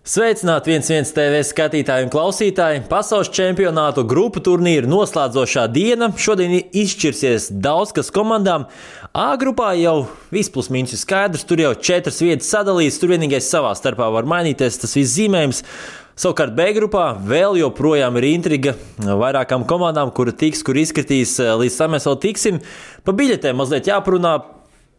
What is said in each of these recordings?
Sveicināti 1-1 TV skatītāji un klausītāji! Pasaules čempionātu grupu turnīru noslēdzošā diena. Šodien izšķirsies daudz kas komandām. A grupā jau viss plus mīnus ir skaidrs, tur jau 4 vietas sadalīts, tur vienīgais savā starpā var mainīties tas viss zīmējums. Savukārt B grupā vēl joprojām ir intriga vairākām komandām, kura tiks, kur izskatīs, līdz tam mēs vēl tiksim. Pa biļetēm mazliet jāparunā.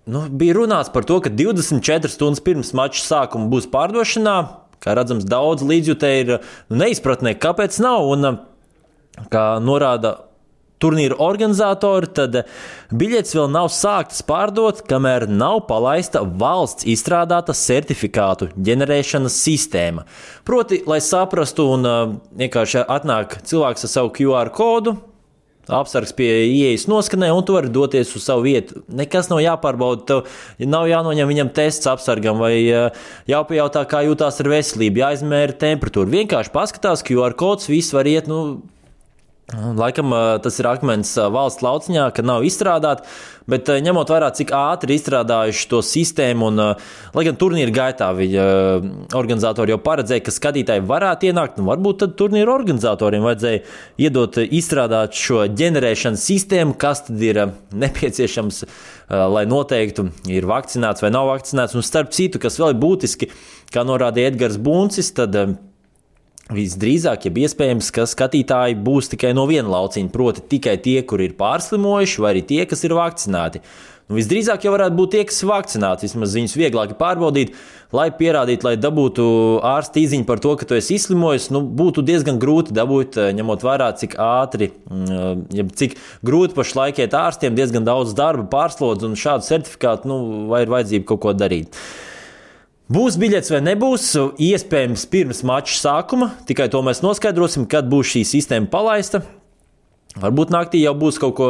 Bija runāts par to, ka 24 stundas pirms mača sākuma būs pārdošanā. Kā redzams, daudz līdzjutēji ir neizpratnē, kāpēc nav. Un, kā norāda turnīra organizatori, tad biļetes vēl nav sāktas pārdot, kamēr nav palaista valsts izstrādāta certifikātu ģenerēšanas sistēma. Proti, lai saprastu un vienkārši atnāk cilvēks ar savu QR kodu, apsargs pie ieejas noskanē, un tu vari doties uz savu vietu. Nekas nav jāpārbauda, tev nav jānoņem viņam tests apsargam vai jāpajautā, kā jūtās ar veselību, jāizmēra temperatūru. Vienkārši paskatās, QR kods, viss var iet, laikam tas ir akmens valsts lauciņā, ka nav izstrādāti, bet ņemot vērā, cik ātri izstrādājuši to sistēmu, un lai gan turnīra gaitā organizatori jau paredzēja, ka skatītāji varētu ienākt, varbūt tad turnīra organizatoriem vajadzēja iedot izstrādāt šo ģenerēšanas sistēmu, kas tad ir nepieciešams, lai noteiktu, ir vakcinēts vai nav vakcinēts, un starp citu, kas vēl ir būtiski, kā norādīja Edgars Buncis, tad visdrīzāk, ja iespējams, ka skatītāji būs tikai no viena lauciņa, proti tikai tie, kuri ir pārslimojuši, vai arī tie, kas ir vakcinēti. Visdrīzāk jau varētu būt tie, kas ir vakcinēti, vismaz viņus vieglāk pārbaudīt, lai pierādītu, lai dabūtu ārsta īziņu par to, ka tu esi izslimojis, būtu diezgan grūti dabūt, ņemot vērā, cik ātri, cik grūti pašlaik iet ārstiem, diezgan daudz darba, pārslodz, un šādu certifikātu, vai ir vajadzība kaut ko darīt. Būs biļets vai nebūs, iespējams pirms mača sākuma, tikai to mēs noskaidrosim, kad būs šī sistēma palaista. Varbūt naktī jau būs kaut ko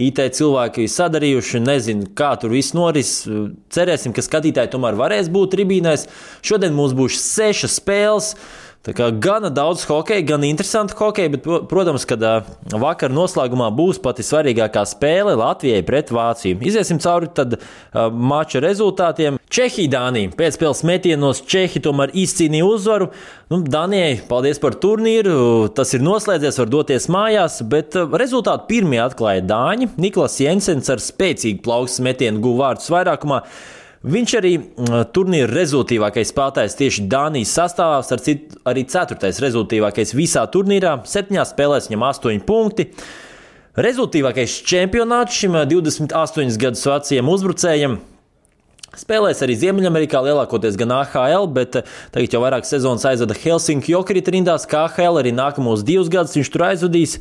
IT cilvēki sadarījuši, nezinu, kā tur viss noris. Cerēsim, ka skatītāji tomēr varēs būt tribīnēs. Šodien mums būs 6 spēles. Tā kā gana daudz hokeja, gan interesanti hokeja, bet, protams, kad vakar noslēgumā būs pati svarīgākā spēle Latvijai pret Vāciju. Iziesim cauri tad mača rezultātiem. Čehija-Dānija. Pēcspēles metienos Čehi tomēr izcīnīja uzvaru. Dānijai paldies par turnīru, tas ir noslēdzies, var doties mājās, bet rezultātu pirmie atklāja Dāņi. Niklas Jensens ar spēcīgu plaukstas metienu guva vārdus vairākumā. Viņš arī turnīra rezultīvākais spēlētājs tieši Dānijas sastāvā, starp citu arī 4. rezultīvākais visā turnīrā, 7 spēlēs viņam 8 punkti. Rezultīvākais čempionāts šim 28 gadus vecajam uzbrucējam. Spēlēs arī Ziemeļamerikā, lielākoties gan AHL, bet tagad jau vairāk sezonas aizvada Helsinki Jokerit rindās, kā AHL arī nākamos 2 gadus viņš tur aizvadīs.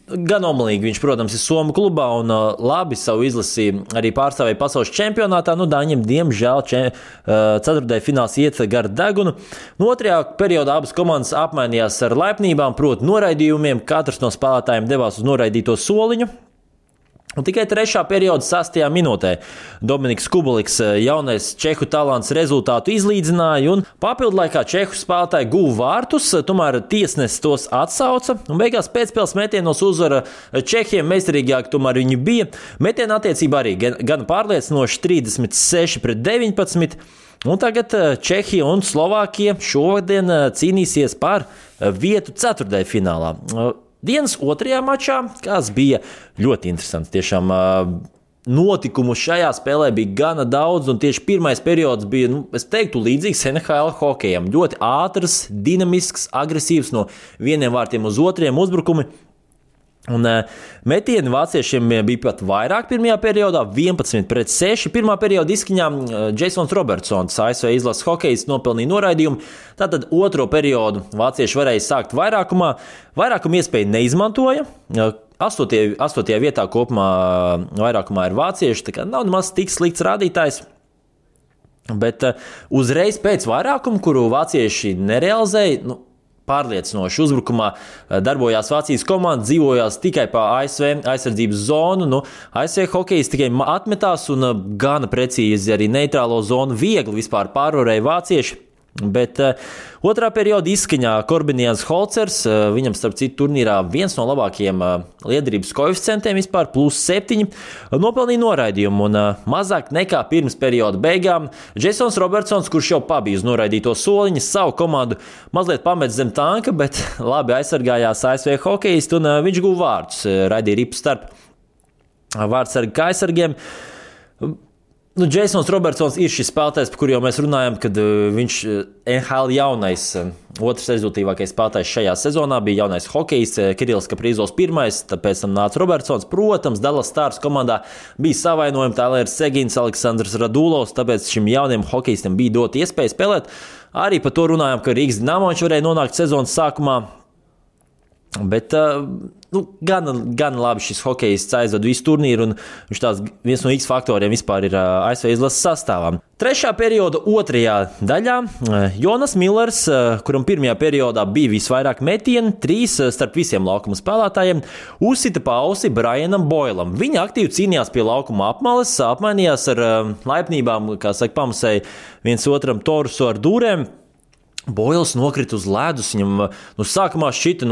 Gan omlīgi viņš, protams, ir Somu klubā un labi savu izlasi arī pārstāvēja pasaules čempionātā. Dāņiem, diemžēl, 4. fināls iet gar degunu. Otrajā periodā abas komandas apmainījās ar laipnībām, proti noraidījumiem. Katrs no spēlētājiem devās uz noraidīto soliņu. Un tikai 3. perioda 6. minūtē Dominiks Kubuliks, jaunais čehu talants, rezultātu izlīdzināja, un papildlaikā čehu spēlētāji guva vārtus, tomēr tiesnesis tos atsauca, un beigās pēcspēles metienos uzvara čehiem, meistarīgāk tomēr viņi bija. Metiena attiecībā arī gan pārliecinoši 36-19, un tagad Čehija un Slovākija šodien cīnīsies par vietu 4. finālā. Dienas 2. mačā, kas bija ļoti interesants. Tiešām notikumu šajā spēlē bija gana daudz, un tieši pirmais periods bija, es teiktu, līdzīgs NHL hokejam. Ļoti ātrs, dinamisks, agresīvs no vieniem vārtiem uz otriem uzbrukumi. Un metieni vāciešiem bija pat vairāk pirmajā periodā, 11-6. Pirmā perioda izskaņā Jasons Robertsons, ASV izlases hokejs, nopelnīja noraidījumu. Tātad otro periodu vācieši varēja sākt vairākumā. Vairākumu iespēju neizmantoja. 8. vietā kopumā vairākumā ir vācieši, tā kā nav nemaz tik slikts rādītājs. Bet uzreiz pēc vairākumu, kuru vācieši nerealizēja, pārliecinoši uzbrukumā darbojās Vācijas komanda, dzīvojās tikai pa ASV aizsardzības zonu. ASV hokejs tikai atmetās un gana precīzi arī neitrālo zonu viegli vispār pārvarēja vācieši. Bet otrā perioda izskaņā Korbinians Holcers, viņam starp citu turnīrā viens no labākajiem liederības koeficientiem vispār, +7, nopelnīja noraidījumu un mazāk nekā pirms perioda beigām Jasons Robertsons, kurš jau pabija uz noraidīto soliņu, savu komandu mazliet pamet zem tanka, bet labi aizsargājās ASV hokejisti un viņš guva vārdus, raidīja ripu starp vārdsargi kā aizsargiem. Jasons Robertsons ir šis spēlētājs, par kuru jau mēs runājam, kad viņš NHL jaunais, otrs rezultātīvākais spēlētājs šajā sezonā bija jaunais hokejists Kirillis Kaprizovs pirmais, tāpēc tam nāca Robertsons. Protams, Dallas Stars komandā bija savainojumi Tailers Segins, Aleksandrs Radulovs, tāpēc šim jauniem hokejistam bija dot iespēju spēlēt. Arī par to runājam, ka Rīgas Dinamo viņš varēja nonākt sezonas sākumā. Bet gan labi šis hokejists aizvada visu turnīru, un viņš tās viens no X faktoriem vispār ir ASV izlases sastāvā. Trešā perioda otrajā daļā Jonas Millers, kuram pirmajā periodā bija visvairāk metienu, 3 starp visiem laukuma spēlētājiem, uzsita pausi Brianam Boilam. Viņi aktīvi cīnījās pie laukuma apmales, apmainījās ar laipnībām, kā saka, pamasēja viens otram torusu ar dūrēm. Boils nokrita uz ledus, viņam sākumā šķita,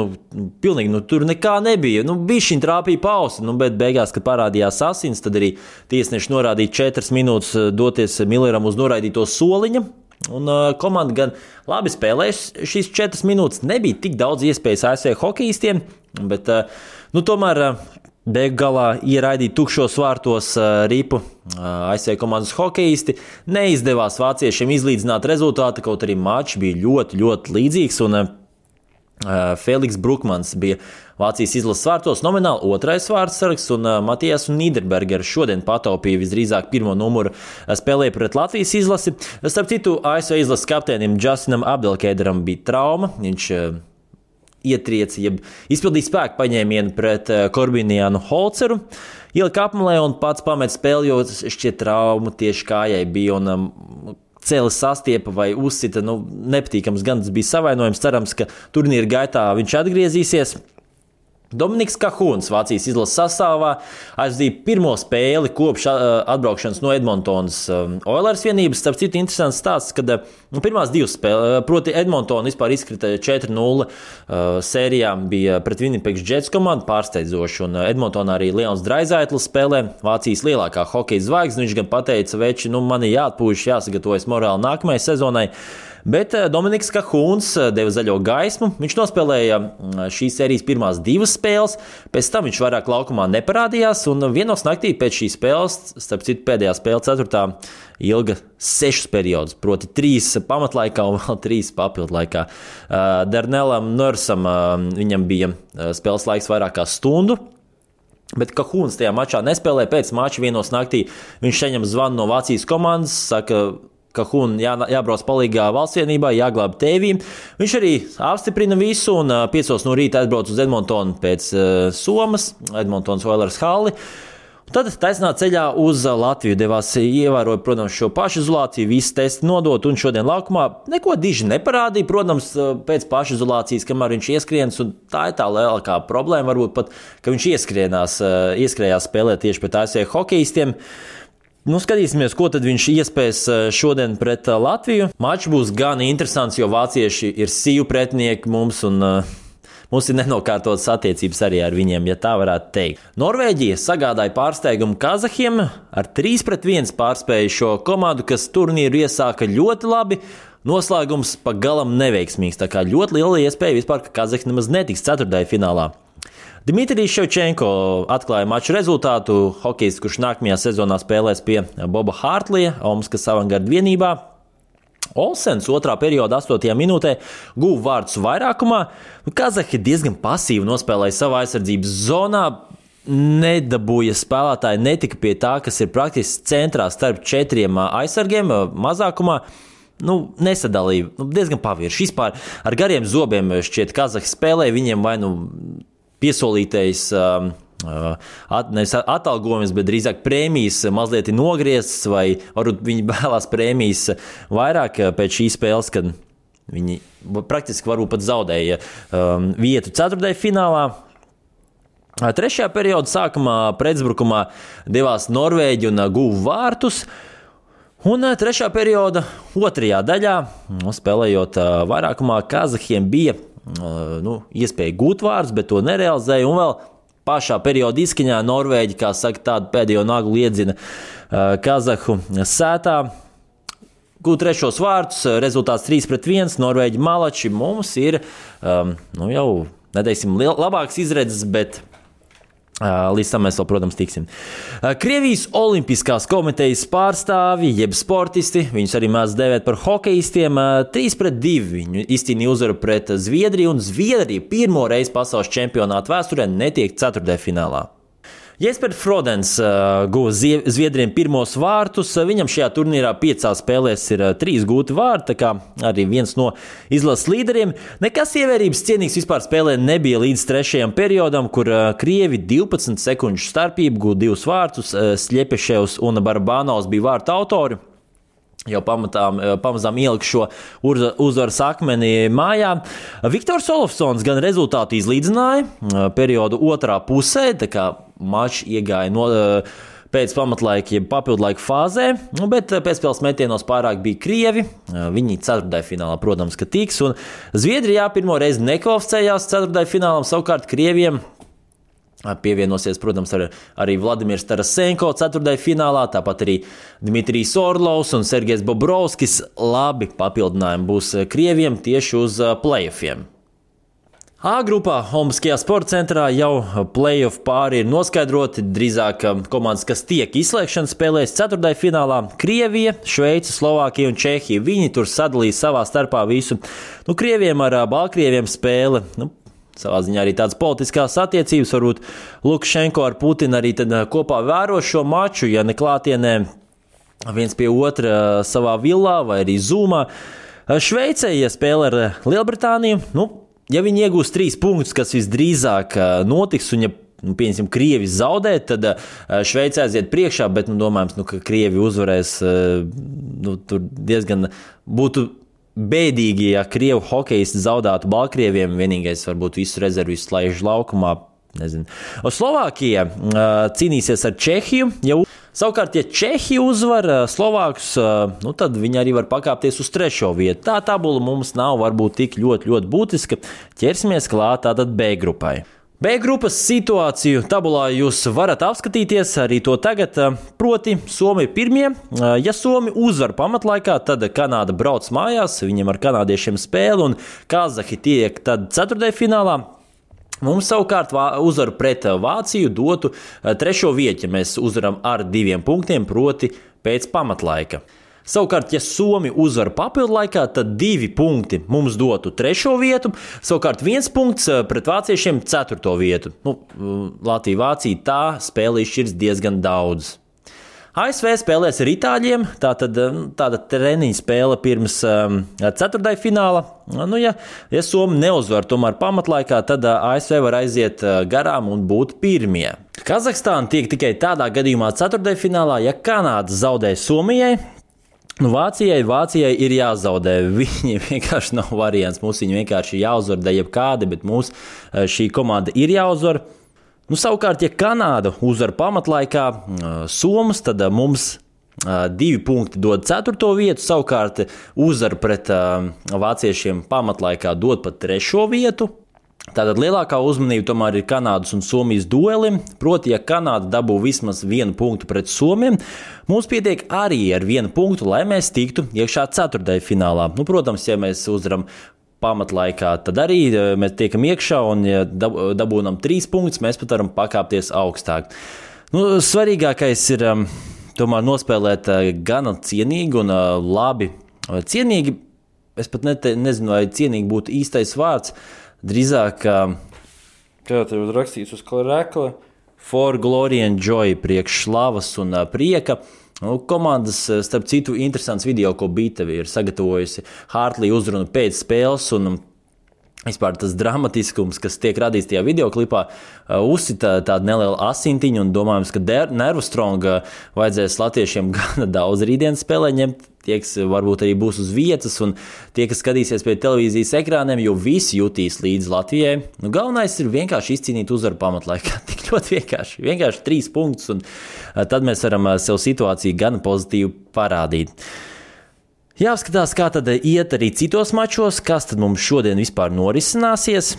pilnīgi tur nekā nebija. Bišķiņ trāpīja pausi, bet beigās, kad parādījās asins, tad arī tiesneši norādīja 4 minūtes doties Milleram uz noraidīto soliņa. Un komanda gan labi spēlēja šīs 4 minūtes, nebija tik daudz iespējas ASV hokejistiem, bet tomēr beigu galā ieraidīt tukšos vārtos ripu ASV komandas hokejisti. Neizdevās vāciešiem izlīdzināt rezultātu, kaut arī mačs bija ļoti, ļoti līdzīgs. Un Feliks Brukmans bija Vācijas izlases vārtos nomināli otrais vārdsargs, un Matijas Nīderbergers šodien pataupīja visdrīzāk pirmo numuru spēlēja pret Latvijas izlasi. Starp citu, ASV izlases kapteinim Justinam Abdelkēderam bija trauma. Viņš ietrieci, jeb izpildīja spēku paņēmienu pret Korbinianu Holceru, ielika apmalē un pats pamet spēli, jo šķiet trauma tieši kājai bija un cēlis sastiepa vai uzsita, nepatīkams gan tas bija savainojums, cerams, ka turnīra gaitā viņš atgriezīsies. Dominiks Kahūns Vācijas izlases sastāvā aizdīja pirmo spēli kopš atbraukšanas no Edmontonas Oilers vienības. Starp citu, interesants stāsts, kad pirmās 2 spēles, proti Edmontona vispār izkrita 4-0 sērijā, bija pret Winnipeg Jets komandu pārsteidzoši, un Edmontonā arī Leons Draisaitls spēlē, Vācijas lielākā hokeja zvaigzne. Viņš gan pateica, veči, man ir jāatpūš, jāsagatavojas morāli nākamajai sezonai. Bet Dominiks Kahūns deva zaļo gaismu. Viņš nospēlēja šīs sērijas pirmās 2 spēles, pēc tam viņš vairāk laukumā neparādījās, un vienos naktī pēc šīs spēles, starp citu pēdējā spēle 4. ilga 6 periodus, proti 3 pamatlaikā un vēl 3 papildlaikā. Darnelam Nursam viņam bija spēles laiks vairāk kā stundu. Bet Kahūns tajā mačā nespēlēja, pēc mača vienos naktī viņš saņem zvanu no Vācijas komandas, saka, Kahūna jābrauc palīgā valsts vienībā, jāglāb tēvīm. Viņš arī apstiprina visu un 5 no rīta atbrauc uz Edmontonu pēc Somas, Edmontonas Oilers halli. Tad taisnā ceļā uz Latviju devās, ievēroja, protams, šo pašizolāciju, visi testi nodot un šodien laukumā neko diži neparādīja. Protams, pēc pašizolācijas, kamēr viņš ieskrienas, un tā ir tā lielākā problēma, varbūt pat, ka viņš ieskrējās spēlēt tieši pret ASV hokejistiem. Skatīsimies, ko tad viņš iespējas šodien pret Latviju. Mačs būs gan interesants, jo vācieši ir sīvu pretinieki mums un mums ir nenokārtotas attiecības arī ar viņiem, ja tā varētu teikt. Norvēģija sagādāja pārsteigumu kazahiem, ar 3-1 pārspēja šo komandu, kas turnīru iesāka ļoti labi. Noslēgums pagalam neveiksmīgs, tā kā ļoti liela iespēja vispār, ka kazahi nemaz netiks ceturtajā finālā. Dmitrijs Ševčenko atklāja maču rezultātu. Hokejists, kurš nākamajā sezonā spēlēs pie Boba Hārtlija, Omskas avangarda vienībā. Olsens 2. perioda 8. minūtē guva vārdus vairākumā. Kazahi diezgan pasīvi nospēlēja savā aizsardzības zonā. Nedabūja spēlētāji, netika pie tā, kas ir praktiski centrā starp 4 aizsargiem mazākumā. Nesadalīja, diezgan pavirši. Vispār ar gariem zobiem šķiet Kazahi spēlēja, viņiem vai piesolītais nevis atalgojums, bet drīzāk prēmijas mazliet ir nogrieztas, vai varbūt viņi vēlās prēmijas vairāk pēc šīs spēles, kad viņi praktiski varbūt pat zaudēja vietu 4. finālā. 3. perioda sākumā pretuzbrukumā devās Norvēģi un guva vārtus. Un trešā perioda otrajā daļā, spēlējot vairākumā, kazahiem bija iespēja gūt vārdus, bet to nerealizēja. Un vēl pašā perioda izskaņā Norvēģi, kā saka, tādu pēdējo naglu iedzina kazahu sētā. Gūt trešos vārdus, rezultāts 3-1, Norvēģi malači. Mums ir jau, neteiksim, labāks izredzes, bet līdz tam mēs vēl, protams, tiksim. Krievijas Olimpiskās komitejas pārstāvi, jeb sportisti, viņus arī mēs dēvēt par hokejistiem, 3-2 viņu izcīnīja uzvaru pret Zviedriju, un Zviedrija pirmo reizi pasaules čempionāta vēsturē netiek ceturtdaļfinālā. Jespers Frodens guva Zviedriem pirmos vārtus. Viņam šajā turnīrā 5 spēlēs ir 3 gūti vārti, tā kā arī viens no izlases līderiem. Nekas ievērības cienīgs vispār spēlē nebija līdz trešajam periodam, kur krievi 12 sekundžu starpību guva 2 vārtus. Sļepeševs un Barabanovs bija vārtu autori. Jau pamazām ielika šo uzvaras akmeni mājā. Viktors Olofsons gan rezultātu izlīdzināja periodu otrā pusē, tā kā mačs iegāja pēc pamatlaika, jeb papildlaika fāzē, bet pēcspēles metienos pārāk bija krievi. Viņi ceturtdaļfinālā, protams, ka tiks, un Zviedrijā pirmo reizi nekvalificējās ceturtdaļfinālam, savukārt krieviem pievienosies, protams, arī Vladimirs Tarasenko ceturtdaļfinālā, tāpat arī Dmitrijs Orlovs un Sergejs Bobrovskis. Labi papildinājumi būs krieviem tieši uz playoffiem. A grupā Olimpiskajā sporta centrā jau playoff pāri ir noskaidroti. Drīzāk komandas, kas tiek izslēgšanas spēlēs ceturtdaļfinālā, Krievija, Šveice, Slovākija un Čehija. Viņi tur sadalīja savā starpā visu. Krieviem ar Baltkrieviem spēle. Savā ziņā arī tādas politiskās attiecības, varbūt Lukašenko ar Putinu arī kopā vēro šo maču, ja ne klātienē viens pie otra savā villā vai arī Zoomā. Šveicē, ja spēlē ar Lielbritāniju, ja viņi iegūs 3 punktus, kas visdrīzāk notiks, un ja, pieņemsim, Krievi zaudē, tad Šveicē aiziet priekšā, bet, domājams, ka Krievi uzvarēs, tur diezgan būtu bēdīgi, ja krievu hokejisti zaudētu Baltkrieviem. Vienīgais varbūt visu rezervu izslēdz laukumā. Nezinu. Slovākija cīnīsies ar Čehiju. Savukārt, ja Čehija uzvar Slovākus, tad viņi arī var pakāpties uz 3. vietu. Tā tabula mums nav varbūt tik ļoti būtiska. Ķersimies klāt tātad B grupai. B grupas situāciju tabulā jūs varat apskatīties arī to tagad, proti Somija pirmie. Ja Somija uzvar pamatlaikā, tad Kanāda brauc mājās, viņiem ar kanādiešiem spēli, un kazahi tiek tad ceturtdaļfinālā. Mums savukārt uzvaru pret Vāciju dotu 3. vietu, ja mēs uzvaram ar 2 punktiem, proti pēc pamatlaika. Savukārt, ja Somija uzvar papildlaikā, tad 2 punkti mums dotu 3. vietu, savukārt 1 punkts pret vāciešiem 4. vietu. Latvija-Vācija tā spēle izšķirs diezgan daudz. ASV spēlēs ar itāļiem, tāda treniņa spēle pirms ceturtdaļfināla. Ja Somija neuzvar tomēr pamatlaikā, tad ASV var aiziet garām un būt pirmie. Kazahstāna tiek tikai tādā gadījumā ceturtdaļfinālā, ja Kanāda zaudē Somijai. Vācijai ir jāzaudē. Viņiem vienkārši nav variants. Mums viņi vienkārši jāuzvar, da jebkādi, bet mums šī komanda ir jāuzvar. Savukārt, ja Kanāda uzvar pamatlaikā Somas, tad mums 2 punkti dod 4. vietu. Savukārt, uzvar pret vāciešiem pamatlaikā dod pat 3. vietu. Tātad lielākā uzmanība tomēr ir Kanādas un Somijas duelim. Proti, ja Kanāda dabū vismaz 1 punktu pret Somiem, mums pietiek arī ar 1 punktu, lai mēs tiktu iekšā ceturtdaļfinālā. Protams, ja mēs uzvaram pamatlaikā, tad arī mēs tiekam iekšā, un ja dabūnam 3 punktus, mēs pat varam pakāpties augstāk. Svarīgākais ir tomēr nospēlēt gana cienīgi un labi. Cienīgi, es pat nezinu, vai cienīgi būtu īstais vārds. Drīzāk, kā tev rakstīts uz rekla, for glory and joy, priekš slavas un prieka. Komandas, starp citu, interesants video, ko Bītavi ir sagatavojusi Hartley uzrunu pēc spēles, un Vispār tas dramatiskums, kas tiek radīts tajā videoklipā, uzsita tādu nelielu asintiņu un domājams, ka nervu stronga vajadzēs latviešiem gana daudz rītdienas spēlē ņemt. Tie, kas varbūt arī būs uz vietas un tie, kas skatīsies pie televīzijas ekrāniem, jo visi jutīs līdz Latvijai. Galvenais ir vienkārši izcīnīt uzvaru pamatlaikā. Tik ļoti vienkārši 3 punktus un tad mēs varam sev situāciju gana pozitīvi parādīt. Jāskatās, kā tad iet arī citos mačos, kas tad mums šodien vispār norisināsies.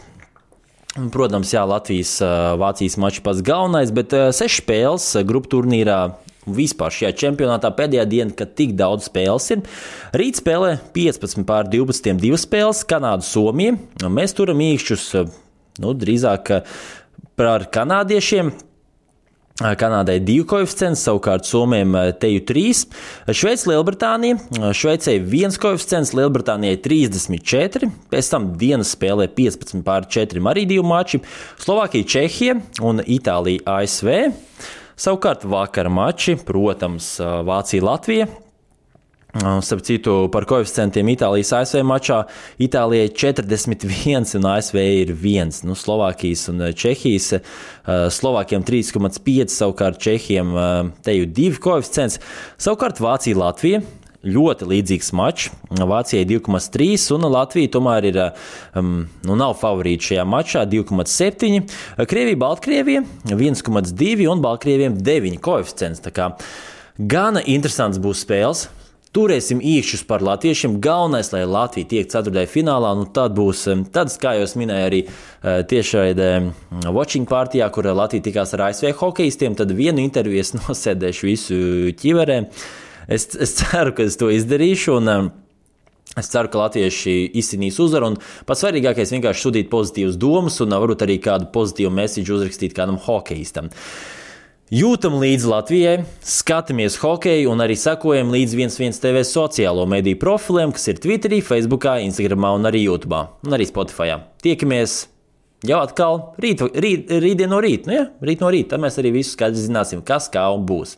Protams, Latvijas-Vācijas mačs pats galvenais, bet 6 spēles grupu turnīrā vispār šajā čempionātā pēdējā diena, kad tik daudz spēles ir. Rīt spēlē 15:12 2 spēles, Kanāda-Somija. Mēs turam īkšķus, drīzāk par kanādiešiem. Kanādai 2 koeficients, savukārt Somijam teju 3. Šveice-Lielbritānija. Šveicei 1 koeficients, Lielbritānijai 34. Pēc tam dienas spēlē 15:4 arī 2 mači. Slovākija-Čehija un Itālija-ASV. Savukārt vakara mači, protams, Vācija-Latvija. Starp citu, par koeficientiem Itālijas ASV mačā Itālijai 41 un ASV ir 1. Slovākijas un Čehijas. Slovākiem 3,5, savukārt Čehiem teju 2 koeficients. Savukārt Vācija-Latvija. Ļoti līdzīgs mačs. Vācijai 2,3 un Latvija tomēr ir, nav favorīti šajā mačā 2,7. Krievija-Baltkrievija 1,2 un Baltkrieviem 9 koeficients. Tā kā gana interesants būs spēles. Turēsim īkšķus par latviešiem. Galvenais, lai Latvija tiek ceturtajā finālā, tad būs tāds, kā jau es minēju arī tiešraidē watching partijā, kur Latvija tikās ar ASV hokejistiem, tad vienu interviju es nosēdēšu visu ķiverē. Es ceru, ka es to izdarīšu, un es ceru, ka latvieši izcīnīs uzvaru, un pats svarīgākais vienkārši sūtīt pozitīvas domas, un varbūt arī kādu pozitīvu mēsīšu uzrakstīt kādam hokejistam. Jūtam līdzi Latvijai, skatāmies hokeju un arī sekojam līdz 11 TV sociālo mediju profiliem, kas ir Twitterī, Facebookā, Instagramā un arī YouTube un arī Spotifyā. Tiekamies jau atkal rītdien no rīta, rīt no rīta, tad mēs arī visu skaidri zināsim, kas kā un būs.